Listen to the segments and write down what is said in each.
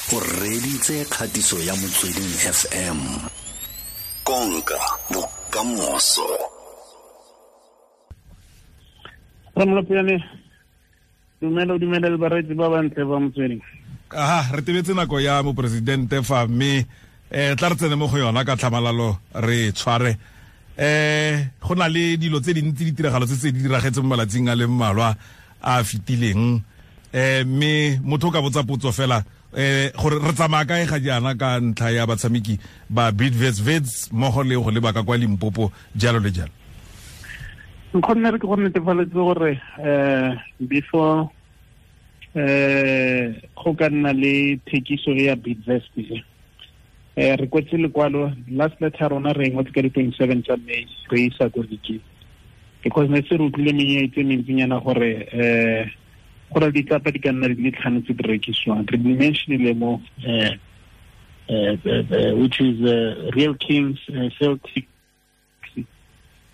O reditse kgatiso ya Motsweding FM. Konka bokamoso. Ramolopjane, dumela o dumela le bareetsi ba bantle ba Motsweding. Aha, re tebetse nako ya moporesidente fa, mme tla re tsene mo go yona ka tlhamalalo re tshware. Go na le dilo tse dintsi, ditiragalo tse tse di diragetseng mo malatsing a le mmalwa a fetileng. Mme motho o ka botsa potso fela, gore re tsamaya kae ga jaana ka ntlha ya batshameki ba Bidvest Wits mmogo le go leba ka kwa Limpopo, jalo le jalo. Nkgonne re ke go netefaletse gore before go ka nna le thekiso ya Bidvest, re kwetse lekwalo, last letter rona re ngwetse ka di-27 tsa May, re isa ko league, because ne se re utlwile menyenyetsi e mentsinyana gore gore ditlapa di ka nna di le tlhano tse di rekisiwang. Re di mentionile mo, which is Real Kings, Celtic,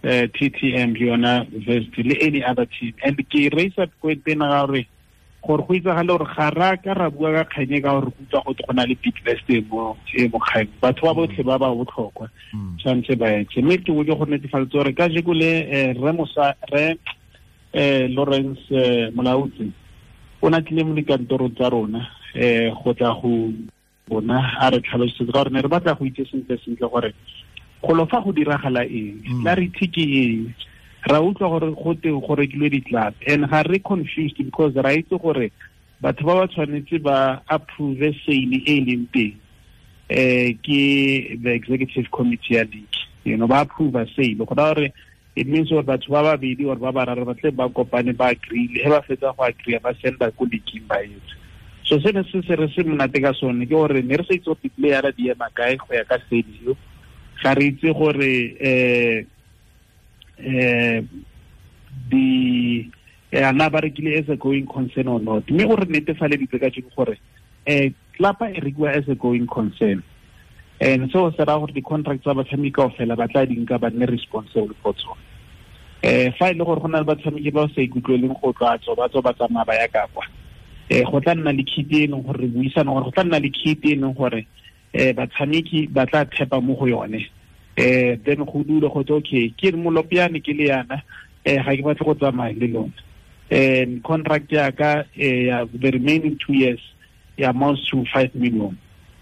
TTM, yona Vest, le any other team. And ke raise up point ena ga gore go itsagale gore ga ra ka ra bua ka kganye ka gore go utlwa go go na le Bidvest e mo kgang. Batho ba botlhe ba ba botlhokwa tshwanetse ba etse, mme ke boke go netefaletsa gore ka jeko le re mosa re Lawrence Molautsi o na tlile mo dikantorong tsa rona go tla go bona a re tlhalosetse, ka gore ne re batla go itse sentle sentle gore golo fa go diragala eng, clarity ke eng. Ra utlwa gore go te go rekilwe di-club, and ga re confused because ra itse gore batho ba ba tshwanetse ba approve sale e leng teng ke the executive committee ya league, ba approve sale. Go raya gore it means gore batho ba babedi or ba bararo ba tle ba kopane, ba agree, he ba fetsa go agree, ba senda ko league, ba etse. So se ne se se re se monate ka sone ke gore ne re sa itse gore di-playera di ema kae go ya ka sale eo. Ga re itse gore di ana ba rekile as a going concern or not, mme o re netefaleditse ka jeko gore klapa e rekiwa as a going concern, and so se raya gore di-contract tsa batshameki kaofela ba tla di nka, ba nne responsible for tsone. Fa e le gore go na le batshameki ba sa ikutlweleng go tla tswa, ba tswa, ba tsamaya ba ya ka kwa, go tla nna le kitty e leng gore re buisana gore go tla nna le kitty e leng gore batshameki ba tla thepa mo go yone. Then go dule go tse, okay, ke Molopiane, ke le yana, ga ke batle go tsamaya le lona. Contract ya ka ya the remaining 2 years ya amounts to 5 million,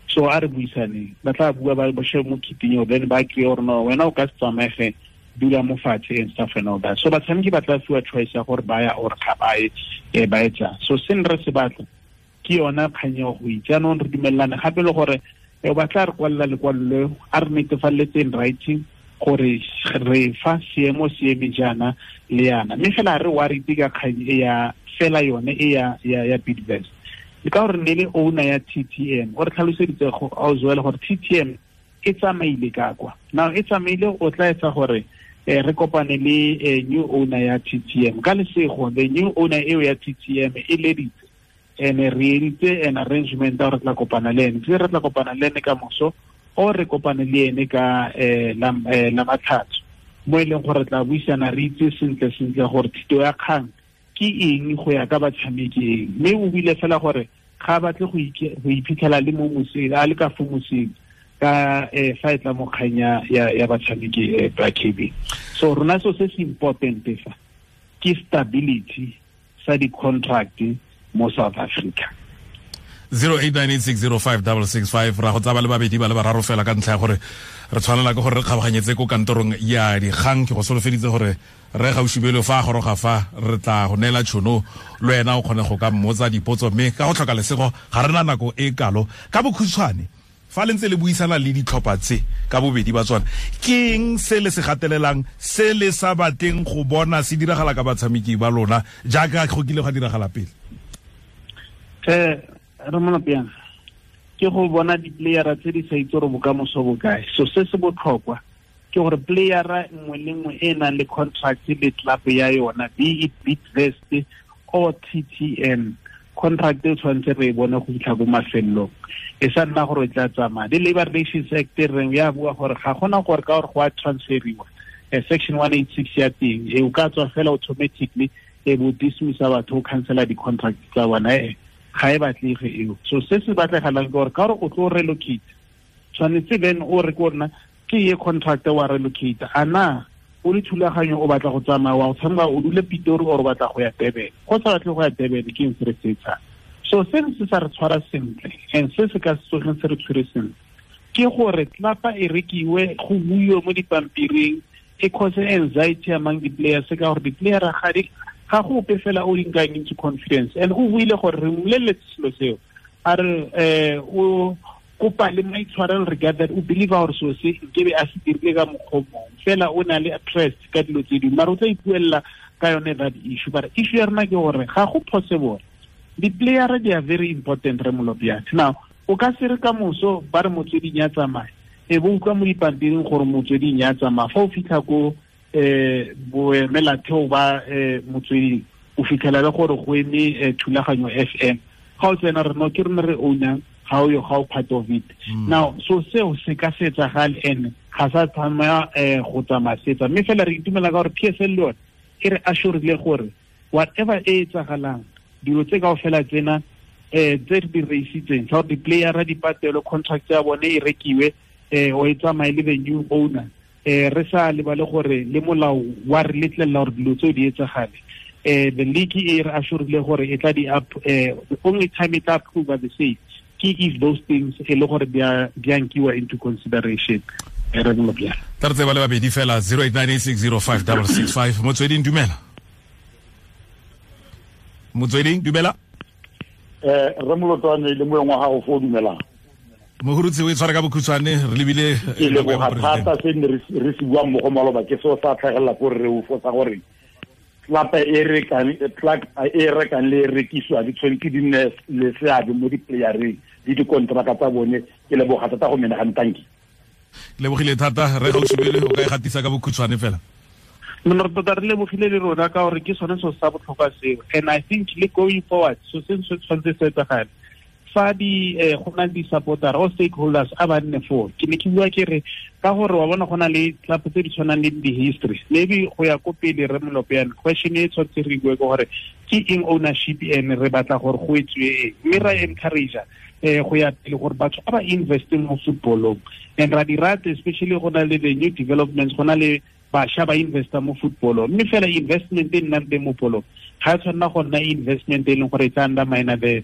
so a re buisaneng. Ba tla bua, ba shebe mo kitting eo, then ba kry gore no, wena o ka se tsamaege, dula mo fatshe and stuff and all that. So batshameki ba tla fiwa choice ya gore ba ya or ga ba ye, ba etsang. So se ne re se batla ke yona kgang eo go itse. Jaanong re dumelelane gape le gore ba tla re kwalela lekwalo leo a re netefaletse in writing gore re fa seemo se eme jaana le yana. Mme fela re worried ka kgang e ya fela yone e ya Bidvest, le ka gore ne le owner ya TTM o re tlhaloseditse go auzoela gore TTM e tsamaile ka kwa. Now e tsamaile, o tla etsa gore re kopane le new owner ya TTM. Ka lesego, the new owner eo ya TTM e leditse, and re editse an arrangement ya gore tla kopana le ene, tse re tla kopana le ene ka moso o re kopane le ene ka la Matlhatso, mo e leng gore tla buisana, re itse sentle sentle gore thito ya kgang ke eng go ya ka batshameki eng. Mme o buile fela gore ga batle go iphitlhela le mo moseng, a le ka fo moseng ka fa e tla mo kgang ya batshameki ba KB. So rona so se se important fa ke stability sa di-contract mo South Africa. 0898605665. Ra go tsaba le babedi ba le bararo fela ka ntlha ya gore re tshwanela ke gore re kgabaganyetse ko kantorong ya dikgang. Ke go solofeditse gore re gaušibelo fa a goroga fa re tla go neela tšhono le wena o kgone go ka mmotsa dipotso, mme ka go tlhoka lesego ga re na nako e kalo. Ka bokhutshwane, fa le ntse le buisana le ditlhopha tse ka bobedi ba tsona, ke eng se le se gatelelang se le sa batleng go bona se diragala ka batshameki ba lona jaaka go kile gwa diragala pele? Re Molopiana, ke go bona di-playera tse di sa itse gore bokamoso bo kae. So se se botlhokwa ke gore playera nngwe le nngwe e nang le contract le club ya yona, be it Bidvest or TTM, contract e tshwanetse re e bone go fitlha ko mafelelong, e sa nna gore e tla tsamaya. Le Labor Relations Act e reng ya bua gore ga gona gore ka gore go a transferiwa, section 186 ya teng e o ka tswa fela automatically e bo dismissa batho, o cancela di-contract tsa bona. Ga e batlege eo. So se se batlegalang ke gore ka gore o tlo relocate, tshwanetse then o re ko rona ke ye contract wa relocate, a na o le thulaganyo o batla go tsamaya wa go tshameka o dule Pitori or o batla go ya Durban. Go sa batle go ya Durban ke eng se re se etsang? So se se sa re tshwara sentle and se se ka se tsogeng se re tshwere sentle ke gore tlapa e rekiwe, go buiwe mo dipampiring, e cause anxiety among the players, ka gore di-player ga go ope fela o di nkang into confidence. And o buile gore re mmoleletse selo seo, a re o kopa le maitshwarelo regarding o believe gore selo se nkebe a se dirile ka mokgwa o mongwe, fela o na le trust ka dilo tse dingwe, mara o tla ipuelela ka yone that issue. But issue ya rena ke gore ga go possible. Di-player they are very important, re Molopjane. Now o ka se re ka moso ba re motsweding ya tsamaya, e bo utlwa mo dipampiring gore motsweding ya tsamaya, fa o fitlha ko boemelatheo ba motsweding, o fitlhela le gore go eme Thulaganyo FM, ga o tsena re no ke rona re ownang, ga o yo ga o part of it. Now so seo se ka se etsagale and ga sa tsamaya go tsamaya setsa. Mme fela re itumela ka gore PSL le yone e re assurile gore whatever e etsagalang, dilo tse kaofela tsena tse re di reisitseng tsa gore di-playera di patelwe, contract ya bone e rekiwe, o e tsamaye le the new owner, re sa lebale gore le molao wa re letlelela gore dilo tseo di etsagale. The league e re assurile gore e tla di up, the only time e tla approve the state ke if those things e le gore di a nkiwa into consideration. Re Molopjane. Tla re tseba le babedi fela, 0898605665. Motsweding, dumela. Motsweding, dumela. Re Molotwane le moeng wa gago fo, dumelang. Mohurutse o e tshware ka bokhutshwane, re lebile ke leboga thata se ne re se buang mo go maloba, ke seo sa tlhagelela ko re o fotsa gore tlapa e rekang e rekang le e rekisiwa di tshwanetse di nne le seabe mo di-playereng le dikontraka tsa bone. Ke leboga thata go menagane, tanki. Lebogile thata re Gaoshubelwe, o ka e gatisa ka bokhutshwane fela. Nna re tota re lebogile le rona ka gore ke sone seo sa botlhokwa seo, and I think le going forward so se se tshwanetse se etsagale fa di go na le di-supporter or stakeholders a ba nne foo. Ke ne ke bua ke re ka gore wa bona go na le club tse di tshwanang le di-history, maybe go ya ko pele re Molopjane, question e tshwanetse re bue ke gore ke eng ownership and re batla gore go etsiwe eng, mme ra encourage go ya pele gore batho ba ba investe mo footballong, and ra di rata especially go na le the new developments, go na le bašwa ba investa mo footballong, mme fela investment e nnang teng mo polong ga e tshwanela go nna investment e leng gore e tla undermine the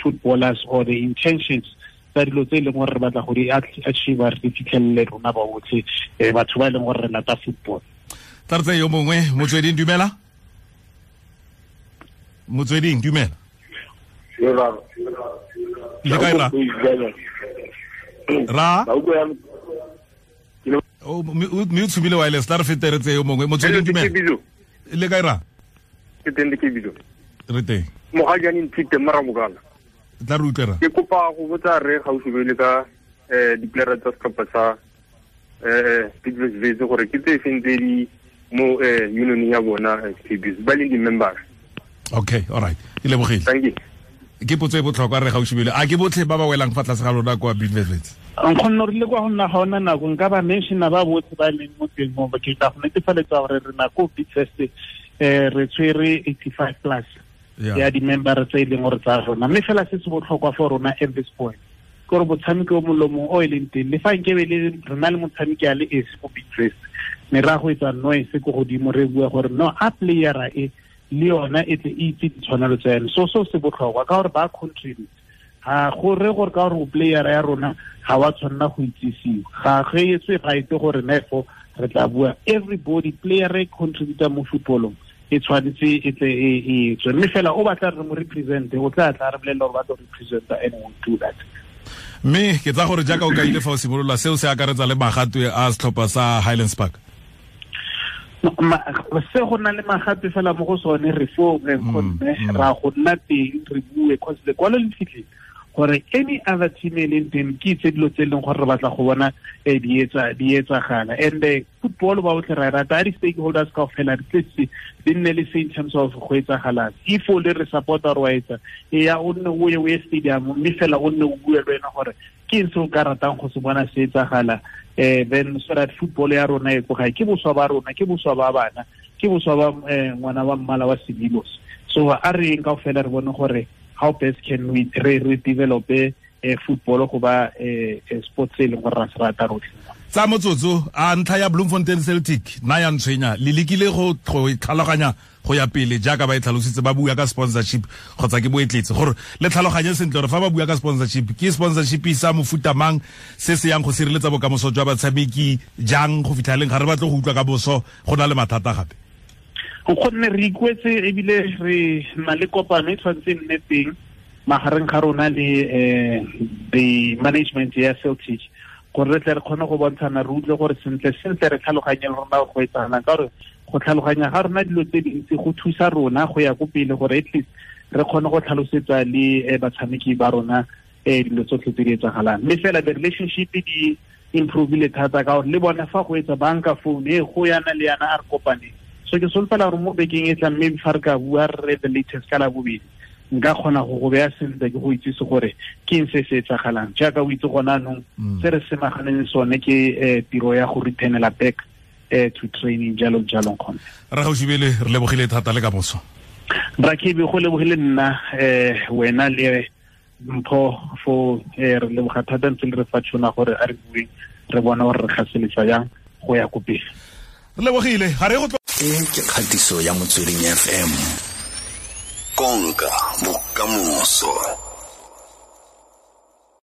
footballers or the intentions tsa dilo tse e leng gore re batla go di achieve, re di fitlhelele rona ba botlhe, batho ba e leng gore re lata football. Tla re tseye yo mongwe. Motsweding, dumela. Motsweding, dumela. Le kae ra? Ra? Mme o tshumile wireless, tla re fete re tseye yo mongwe. Motsweding, dumela. Le kae ra? Ke teng le ke bizo. Re teng. Mogajane nthite mara mogala. Tla re utlwe ra. Ke kopa go botsa re Gaoshubelwe ka di-playera tsa setlhopha sa Bidvest Wits gore ke tse feng tse di mo union ya bona KBs ba leng di-members. Okay, all right. Ke lebogile. Thank you. Ke potso e botlhokwa re Gaoshubelwe. A ke botlhe ba ba welang fa tlase ga lona kwa Bidvest Wits? Nkgonne re le kwa go nna ga ona nako nka ba mentiona ba botlhe ba leng mo teng mo, ke tla go netefaletsa gore re nako Bidvest re tshwere 85 plus ya di-member tse e leng gore tsa rona, mme fela se se botlhokwa for rona at this point ke gore motshameki o molomong o e leng teng, le fa nkebe le re na le motshameki a le esi mo Bidvest, ne ra go etsa noise ko godimo re bua gore no a playera e le yona e tle e itse ditshwanelo tsa yone. So seo se botlhokwa ka gore ba contribute, ga go re gore ka gore o playera ya rona ga wa tshwanela go itsisiwa, ga ge etswe right gore nefo re tla bua everybody player e contributor mo footballong e tshwanetse e tle e tswe, mme fela o batla re mo represente o tla tla re bolelela gore ba tlo representa and we'll do that. Mme ke tsa gore jaaka o kaile fa o simolola, seo se akaretsa le magatwe a setlhopha sa Highlands Park. Se go na le magatwe fela mo go sone re fo re kgonne ra go nna teng re bue, cause lekwalo le fitlhile gore any other team e leng teng ke itse dilo tse e leng gore re batla go bona di etsagala. And football ba botlhe ra e rata, a di-stakeholders kaofela di tletse di nne le se in terms of go etsagalang. If o le re supporter wa etsa, e ya o nne o ye o ye stadium, mme fela o nne o bue le wena gore ke eng se o ka ratang go se bona se etsagala, then so that football ya rona e ko gae, ke boswa ba rona, ke boswa ba bana, ke boswa ba ngwana wa mmala wa sebilos. So a re eng kaofela re bone gore how best can we re develop football go ba sports e leng gore ra se rata rotlhe. Tsa motsotso a ntlha ya Bloemfontein Celtic na ya ntshwenya le lekile go tlhaloganya go ya pele jaaka ba e tlhalositse, ba bua ka sponsorship kgotsa ke boetletse, gore le tlhaloganye sentle gore fa ba bua ka sponsorship ke sponsorship sa mofuta mang se se yang go sireletsa bokamoso jwa batshameki jang go fitlha leng, ga re batle go utlwa ka boso go na le mathata gape. Gonne re ikwetse ebile re na le kopano e tshwanetse nne teng magareng ga rona le the management ya Celtic, gore re tle re kgone go bontshana, re utlwe gore sentle sentle re tlhaloganye le rona go etsagalang, ka gore go tlhaloganya ga rona dilo tse dintsi go thusa rona go ya ko pele, gore at least re kgone go tlhalosetsa le batshameki ba rona dilo tsotlhe tse di etsagalang. Mme fela the relationship di improvile thata, ka gore le bona fa go etsa banka phone e go yana le yana a re kopane. So ke solofela gore mo bekeng e tlang maybe fa re ka bua re the latest ka la bobedi, nka kgona go go beya sentle ke go itsise gore ke eng se se etsagalang. Jaaka o itse gona anong se re semaganeng sone ke tiro ya go returnela back to training jalo jalo. Kgone Re Gaoshubelwe, re lebogile thata le ka moso. Rakebi, go lebogile nna wena le Mpho fo, re leboga thata ntse le re fa tšhono gore a re bueng re bona gore re gaseletsa jang go ya ko pele. Re lebogile, ga re go E ke kgatiso ya Motsweding FM. Konka bokamoso.